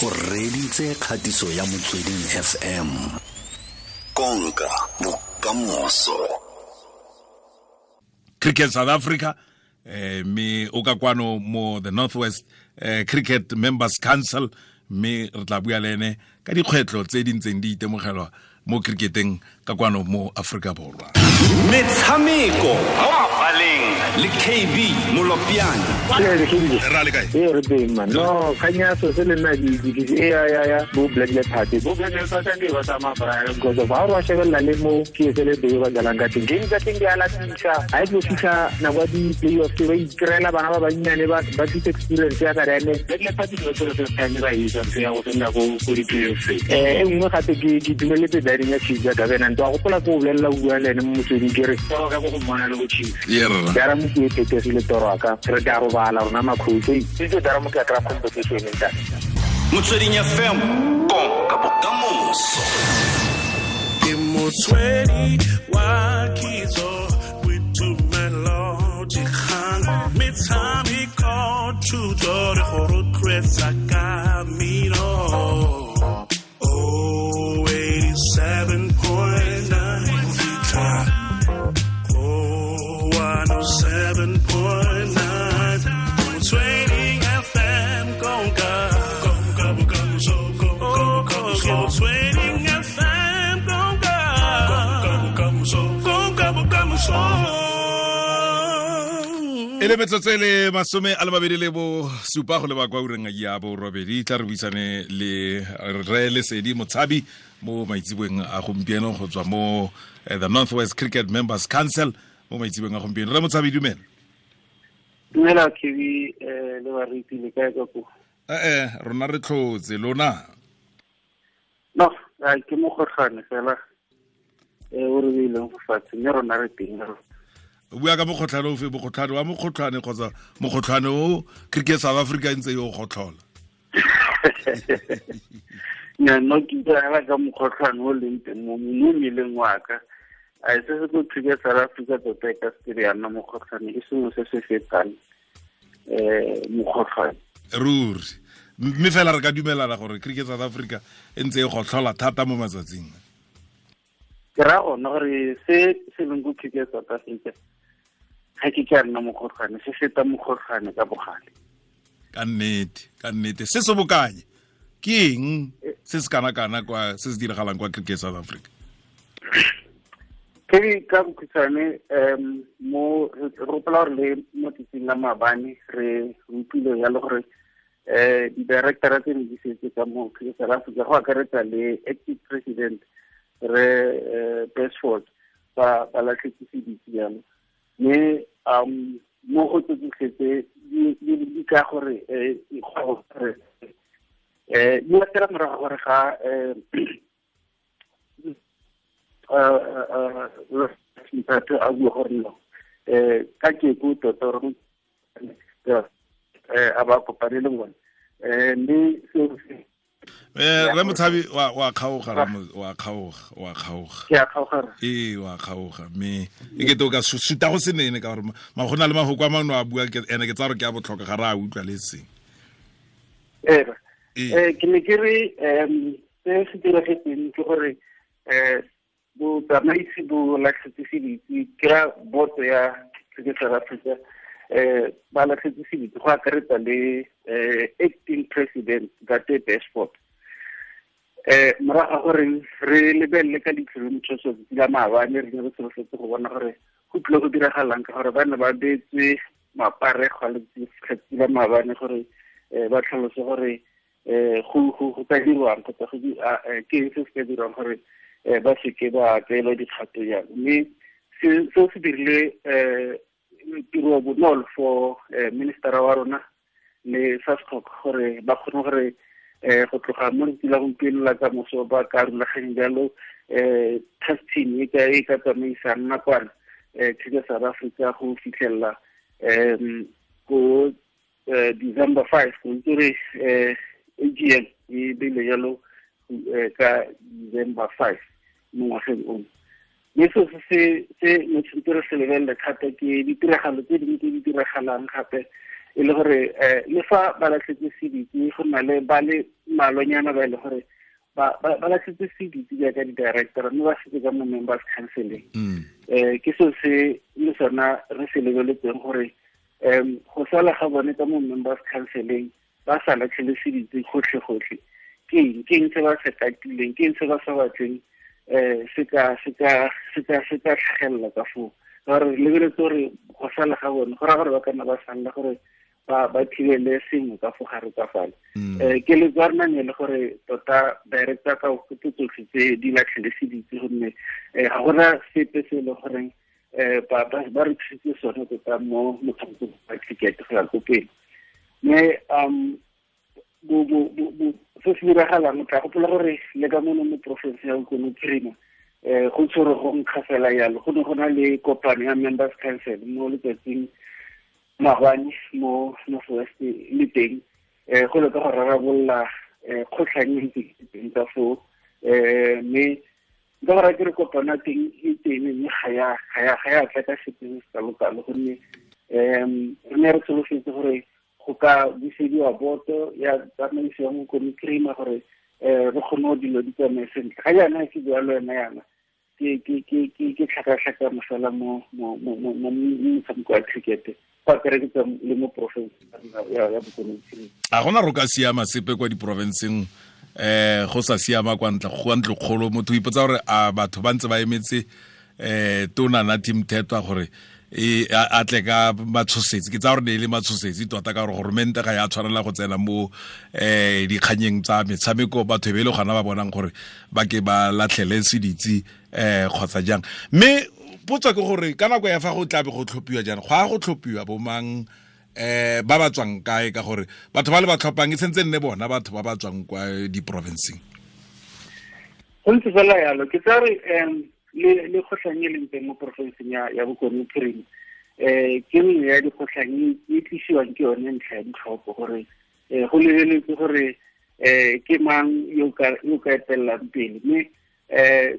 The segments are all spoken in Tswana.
O reditse kgatiso ya Motsweding FM. Konka bokamoso. Cricket South Africa, mme o ka kwano mo the Northwest Cricket Members Council, mme re tla bua le ene ka dikgwetlho tse di ntseng di itemogelwa mo cricketeng ka kwano mo Afrika Borwa. Metshameko mo mabaleng le KB Molopiane. Ra le kae? Ee, re teng, man. No, kgang ya so se le nna di e ya bo Black Leopard. Bo Black Leopard ke ba tsamaya bra because of ha re shebelela le mo ke se le be ba dlalang ka teng. Game tsa teng di a latisa. Ha e tlo fitlha nako ya di-playoff ba ikrela bana ba bannyane ba tlisa experience ya ka ene. Black Leopard ke ba first time ba etsa ntho ya go fenda ko di-playoffs. E nngwe gape ke dumeletse batting ya Chiefs ya Gabena. Ntwa gopola ko bolelela bua le ene mo Motsweding, ke re toro ka go mmona le go Chiefs. Dara mo ke e phethegile toro ka re tla robala rona makhutso itse dara mo ke kry competition ntate. Motsweding FM, konka bokamoso. Ke motswedi wa kitso, boitumelo, dikgang, metshameko, thuto re go rotloetsa ka mmino. Oh, 87.9 fitlha go 107.9, Motsweding FM, konka konka bokamoso, konka bokamoso. Motsweding FM, konka konka bokamoso, konka bokamoso. E le metsotso e le 27 go leba kwa ureng ya 8, tla re buisane le re Lesedi Motshabi mo maitseboeng a gompieno go tswa mo the Northwest Cricket Members Council mo maitseboeng a gompieno. Re Motshabi, dumela. Dumela KB le bariti, le kae ka ko? Ee, rona re tlhotse, lona? No, a ke mokgotlhwane fela o re beileng go fatshe, mme rona re teng. O bua ka mokgotlhwane ofe? Mokgotlhwane wa mokgotlhwane kgotsa mokgotlhwane o Cricket South Africa e ntse yo gotlhola? Nya, no, ke bua fela ka mokgotlhwane o leng teng mo mmeleng wa ka. A se se ko Cricket South Africa tota e ka se ya nna mokgotlhwane, ke sengwe se se fetang mokgotlhwane. Ruri, mme fela re ka dumelana gore Cricket South Africa e ntse e gotlhola thata mo matsatsing. Ke raya gona gore se se leng ko Cricket South Africa ga ke ka nna mokgotlhwane, se feta mokgotlhwane ka bogale. Ka nnete, ka nnete. Se se bokanye ke eng se se kana-kana kwa se se diragalang kwa Cricket South Africa? Ke ka bokhutshwane, mo re gopola gore le mo tsatsing la maabane re utlwile jalo gore di-directora tse ne di setse ka mo Cricket South Africa, go akaretsa le acting president re Basford, ba latlhetse seditse jalo. Mme mo go tse tsotlhe tse di ka gore dikgwebo gore di latela morago gore ga Mphatho a bua gore no ka keko tota gore a ba kopane le bone, mme seo se Re Motshabi, wa kgaoga, wa kgaoga, wa kgaoga. Ke a kgaoga. Ee, wa kgaoga, mme e kete o ka suta go se nene ka gore ma go na le mafoko a mangwe a bua ene ke tsa gore ke a botlhokwa, ga re a utlwa le seng. Ee. Ke ne ke re se se diragetseng ke gore botsamaisi bo latlhetse seditse, ke ra boto ya Cricket South Africa, ba latlhetse seditse go akaretsa le acting president Ntate Basford, morago ga gore re lebelele ka leitlho le motšhoso tsatsi la maabane. Re ne re solofetse go bona gore go tlile go diragalang, ka gore ba ne ba beetswe maparego a letsatsi la maabane gore ba tlhalose gore go ka dirwang kgotsa ke eng se se ka dirwang gore ba seke ba tseelwa dikgato jalo. Mme seo se dirile tiro bonolo for ministera wa rona le SASCOC gore ba kgone gore go tloga mo letsatsi la gompieno la kamoso ba ka rulaganya jalo task team e ka tsamaisang nakwana Cricket South Africa go fitlhelela ko December 5, go itse gore AGM e beile jalo ka December 5 mo ngwageng ono. Mme seo se ne tshwanetse re se lebelele thata ke ditiragalo tse dingwe tse di diragalang gape, e le gore le fa ba latlhetse seditse, go na le ba le mmalwanyana ba e le gore ba latlhetse seditse jaaka di-director mme ba setse ka mo members councileng. Ke seo se le sona re se lebeletseng gore go sala ga bone ka mo members councileng ba sa latlhele seditse gotlhe-gotlhe ke eng se ba se katileng, ke eng se ba sa batleng se ka tlhagelela ka foo. Ka gore re lebeletse gore go sala ga bone go raya gore ba ka nna ba salela gore ba thibele sengwe ka fo gare ka fale. Keletso ya rona ne le gore tota director ka tse tsotlhe tse di latlhele seditse gonne ga gona sepe se e leng goreng ba re thusitse sone tota mo motshamekong wa cricket go ya ko pele. Mme se se diragalang o tla gopola gore le ka mono mo porofense ya Bokone Bophirima go tshwere go nkga fela yalo, go ne go na le kopano ya members council mo letsatsing maabane mo North West le teng go leka go rarabolola kgotlhang e ntse teng ka foo. Mme nka go raya ke re kopano ya teng e teng mme ga ya tla ka sepe se se kalo-kalo gonne re ne re solofetse gore go ka busediwa boto ya tsamaiso ya Bokone Bophirima gore re kgone go dilo di tsamaye sentle. Ga jaana ke bua le wena yana ke tlhakatlhakano fela mo motshameko wa cricket go akaretsa le mo porofenseng ya Bokone Bophirima. A gona ro ka siama sepe kwa diporofenseng go sa siama kwa ntle go ntlo kgolo, motho o ipotsa gore a batho ba ntse ba emetse tona Nathi Mthethwa gore a tle ka matshosetsi. Ke tsa gore ne e le matshosetsi tota ka gore goromente ga ya tshwanela go tsena mo dikganyeng tsa metshameko, batho e be e le gona ba bonang gore ba ke ba latlhele seditse kgotsa jang. Mme potso ke gore ka nako ya fa go tlabe go tlhophiwa jang, go a go tlhophiwa bomang ba ba tswang kae, ka gore batho ba le ba tlhophang e sentse nne bona batho ba ba tswang kwa diporofenseng. Go ntse fela yalo, ke tsa re le kgotlhang e leng teng mo porofenseng ya Bokone Bophirima ke nngwe ya dikgotlhang e tlisiwang ke yone ntlha ya ditlhopho gore go lebeletse gore ke mang yo ka etelelang pele. Mme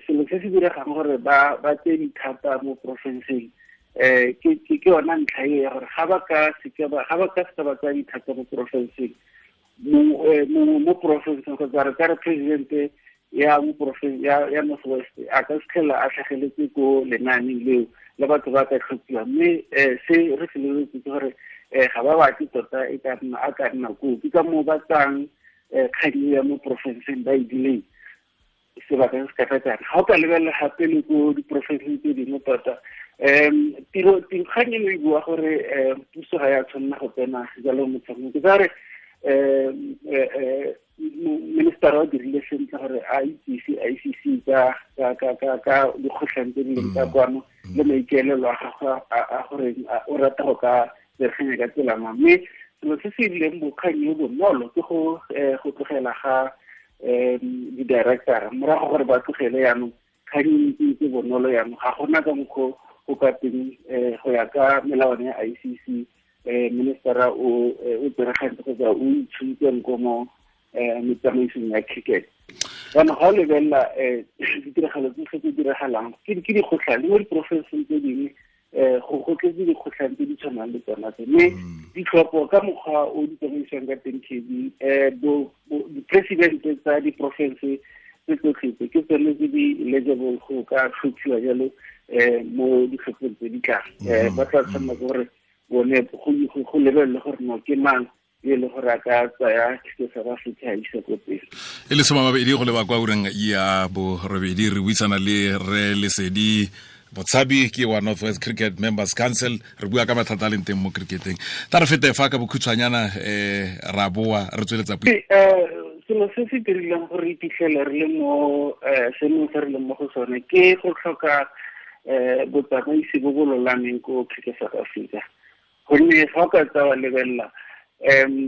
selo se se diregang gore ba tseye dithata mo porofenseng ke yona ntlha e ya gore ga ba ka seka ba tsaya dithata mo porofenseng mo porofenseng kgotsa re ka re presidente ya mo porofense ya North West a ka fitlhela a tlhageletse ko lenaaneng leo le batho ba ka tlhophiwa. Mme se re se lebeletse ke gore ga ba batle tota e ka nna a ka nna koo, ke ka moo ba tsang kgang ya mo porofenseng ba e dileng sebaka se se ka tsana. Ga o ka lebelela gape le ko diporofenseng tse dingwe tota kgang eno e bua gore puso ga ya tshwanela go tsena jalo motshameko. Ke tsa re minister o dirile sentle gore a itsise ICC ka dikgotlhang tse di leng ka kwano le maikaelelo a gagwe a gore o rata go ka bereganya ka tsela mang. Mme selo se se rileng bokgang yo bonolo ke go tlogela ga di-director morago gore ba tlogele jaanong kgang e ntse bonolo jaanong ga gona ka mokgwa go ka teng go ya ka melawana ya ICC minister o tseregantse kgotsa o itshuntseng ko mo metsamaisong ya cricket. Jaanong ga o lebelela ditiragalo tse tse diragalang ke dikgotlhang le mo diporofenseng tse dingwe go tletse dikgotlhang tse di tshwanang le tsona tse. Mme ditlhopho ka mokgwa o di tsamaisiwang ka teng KB di-presidente tsa diporofense tse tsotlhe tse ke tsone tse di eligible go ka tlhophiwa jalo mo ditlhophong tse di tlang. Ba tla tshwanela ke gore bone go lebelele gore no ke mang e le gore a ka tsaya Cricket South Africa a isa ko pele. E le 20 go leba kwa ureng ya borobedi re buisana le re Lesedi Motshabi ke wa North West Cricket Members Council, re bua ka mathata a leng teng mo cricketeng. Tla re fete fa ka bokhutshwanyana ra boa re tsweletsa puo. Selo se se dirileng gore re iphitlhele re le mo seemong se re leng mo go sone ke go tlhoka botsamaisi bo bo lolameng ko Cricket South Africa. Gonne fa o ka tsaya wa lebelela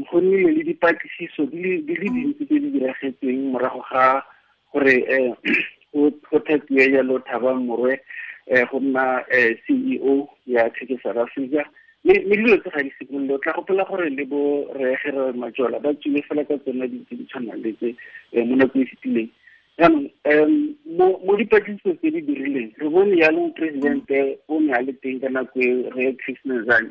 go nnile le dipatlisiso di le dintsi tse di diragetseng morago ga gore go thapiwe jalo Thabang Morwe go nna CEO ya Cricket South Africa. Mme dilo tse ga di simolole, o tla gopola gore le bo Rre Gerald Majola ba tswile fela ka tsona dilo tse di tshwanang le tse mo nakong e fetileng. Jaanong mo dipatlisiso tse di dirileng re bone jaanong presidente o ne a le teng ka nako e Rre Chris Nenzani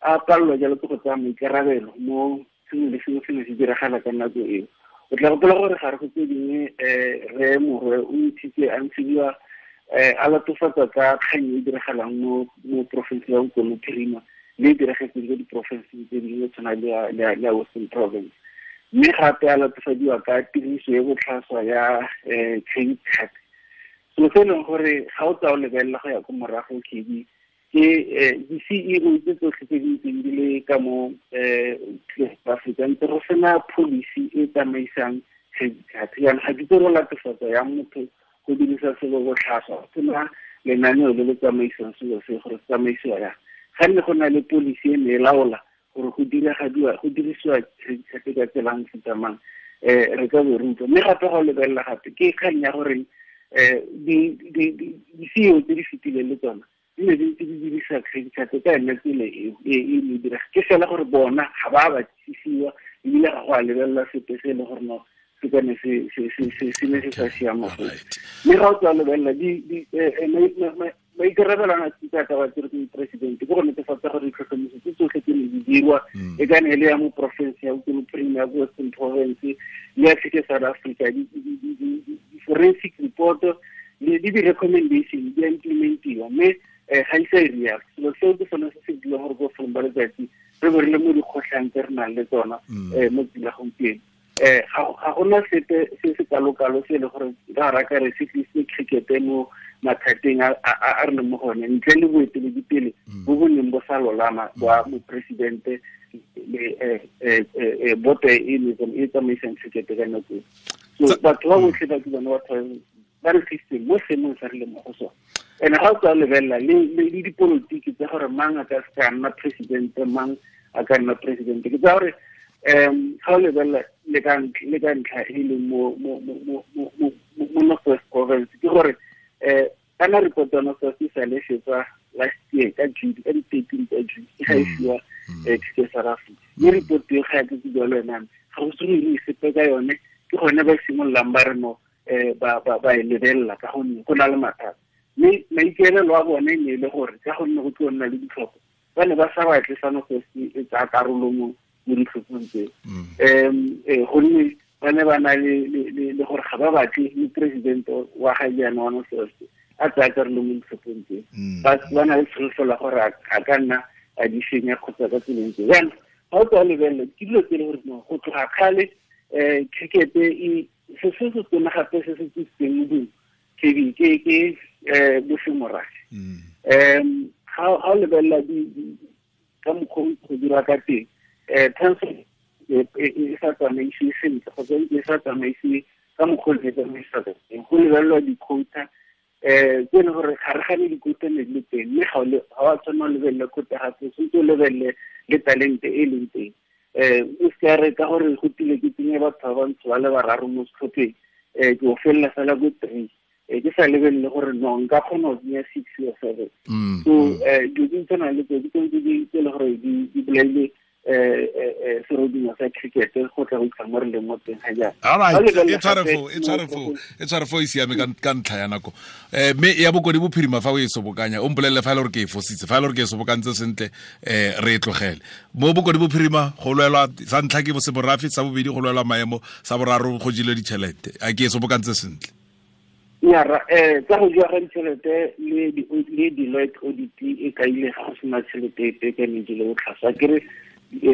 a palelwa jalo ke go tsaya maikarabelo mo sengwe le sengwe se ne se diragala ka nako eo. O tla gopola gore gare go tse dingwe re Morwe o ntshitse a ntshiwa a latofatsa ka kgang e diragalang mo porofenseng ya Bokone Bophirima le e diragetseng ko diporofenseng tse dingwe tshwana le ya Western Province. Mme gape a latofadiwa ka tiriso e botlhaswa ya credit card. Selo se e leng gore ga o tsaya o lebelela go ya ko morago KB ke di-CEO tse tsotlhe tse di ntseng di le ka mo Afrika ntse go sena policy e tsamaisang credit card. Jaanong ga ke itse go latofatsa yang motho go dirisa selo botlhaswa, go sena lenaneo le le tsamaisang selo se gore se tsamaisiwa yang. Ga nne go na le policy e ne e laola gore go dirisiwa credit card ka tsela e mofuta mang, re ka bo re utlwa. Mme gape ga o lebelela gape ke kgang ya gore di-CEO tse di fetileng le tsona di ne di ntse di dirisa credit card ka yone tsela e e direga. Ke fela gore bona ga ba batlisisiwa ebile ga go a lebelela sepe se e leng gore no se ka ne se ne se sa siama foo. Mme ga o tswa lebelela maikarabelo a tsa ka ba tsere ke president ke go netefatsa gore ditlhotlhomiso tse tsotlhe tse ne di dirwa e ka ne e le ya mo porofense ya Bokone Bophirima, ya Western Province le ya Cricket South Africa, di-forensic report le di-recommendation di a implementiwa, mme ga ise e real. Selo seo ke sone se se dirang gore ko bofelong ba letsatsi re bo re le mo dikgotlhang tse re nang le tsona mo tsela gompieno. Ga gona sepe se se kalo-kalo se e le gore ra raka re se tlisitse cricket mo mathateng a re leng mo go one, ntle le boeteledipele bo bo neng bo sa lolama ba moporesidente le boto e e tsamaisang cricket ka nako eo. So batho ba botlhe ba ke bone batho ba re tlisitseng mo seemong sa re leng mo go sone. And ga o tswa lebelela le dipolotiki tsa gore mang a ka se ka nna presidente, mang a ka nna presidente, ke tsa gore ga o lebelela le ka ntlha e leng mo North West Province, ke gore kana report ya North West e sa le fetsa last year ka June, ka di-13 tsa June, e ga e fiwa Cricket South Africa. Mme report eo ga ya ke bua le wena, ga go se go ire sepe ka yone, ke gone ba simololang ba re no ba e lebelela ka gonne go na le mathata. Mme maikaelelo a bone ne e le gore ka gonne go tlo nna le ditlhopho, ba ne ba sa batle sa North West e tsaya karolo mo ditlhophong tseo. Gonne ba ne ba na le gore ga ba batle moporesidente wa ga jaana wa North West a tsaya karolo mo ditlhophong tseo. Ba na le tsholofelo ya gore a ka nna a di senya kgotsa ka tseleng tseo. Jaanong ga o tswa lebelela ke dilo tse e le gore go tloga kgale cricket e se se se tona gape se se tsisitseng modumo ke bosemorafe. Ga o lebelela ka mokgwa o go dira ka teng, transfer e sa tsamaisiwe sentle kgotsa e sa tsamaisiwe ka mokgwa o e tsamaisa ka teng. Go lebelelwa di-quota tse e leng gore ga re gane di-quota ne di le teng, mme ga o a tshwanela o lebelele quota gape, tshwanetse o lebelele le talente e leng teng. O se ka re ka gore go tile ke tsenye batho ba bantsho ba le bararo mo setlhopheng, ke o felela fela ko 3, ke sa lebelele gore no nka kgona go tsenya 6 or 7. So dilo tse di tshwanang le tseo ke tsone tse e le gore di bolaile serodumo sa cricket go tla go itlha mo re leng mo teng ga jaana. All right, e tshware fo e siame ka ntlha ya nako. Mme ya Bokone Bophirima fa o e sobokanya, o mpolelele fa e le gore ke e fositse, fa e le gore ke e sobokantse sentle, re e tlogele. Mo Bokone Bophirima go lwelwa sa ntlha ke bosemorafe, sa bobedi go lwelwa maemo, sa boraro go jilwe ditšhelete. A ke e sobokantse sentle? Nyara, tsa go jewa ga ditšhelete le Deloitte audit e kaile ga go sena tšhelete epe ka ne jele botlhaswa. Ke re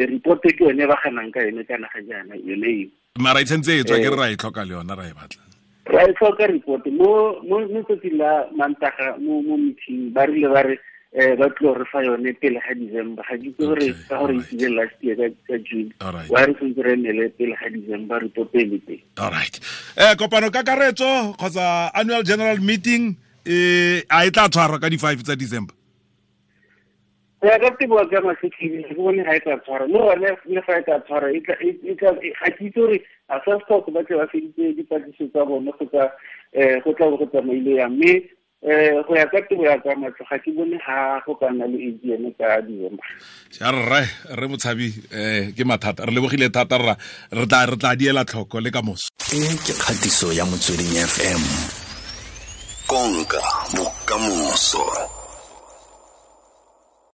report ke yone ba ganang ka yone kana ga jaana yone eo. Mara e tshwanetse e tswa, ke re ra e tlhoka le yona, ra e batla. Ra e tlhoka report mo tsatsing la Mantaga mo meeting ba rile ba re ba tlo re fa yone pele ga December. Ga ke itse gore ka gore e tsile last year ka June. Wa re tshwanetse re emele pele ga December report e le teng. All right. Kopano kakaretso kgotsa annual general meeting a e tla tshwarwa ka di-5 tsa December? Go ya ka tebo ka masetlhedi, ke bone ga e tla tshwarwa. Le gone le fa e tla tshwarwa, ga ke itse gore a sa stock ba tle ba feditse dipatlisiso tsa bone kgotsa go tla bo go tsamaile yang. Mme go ya ka tebo ya ka matlho, ga ke bone ga go ka nna le AGM ka December. Ja rre Motshabi, ke mathata. Re lebogile thata rra, re tla diela tlhoko le ka moso. E ke kgatiso ya Motsweding FM. Konka bokamoso.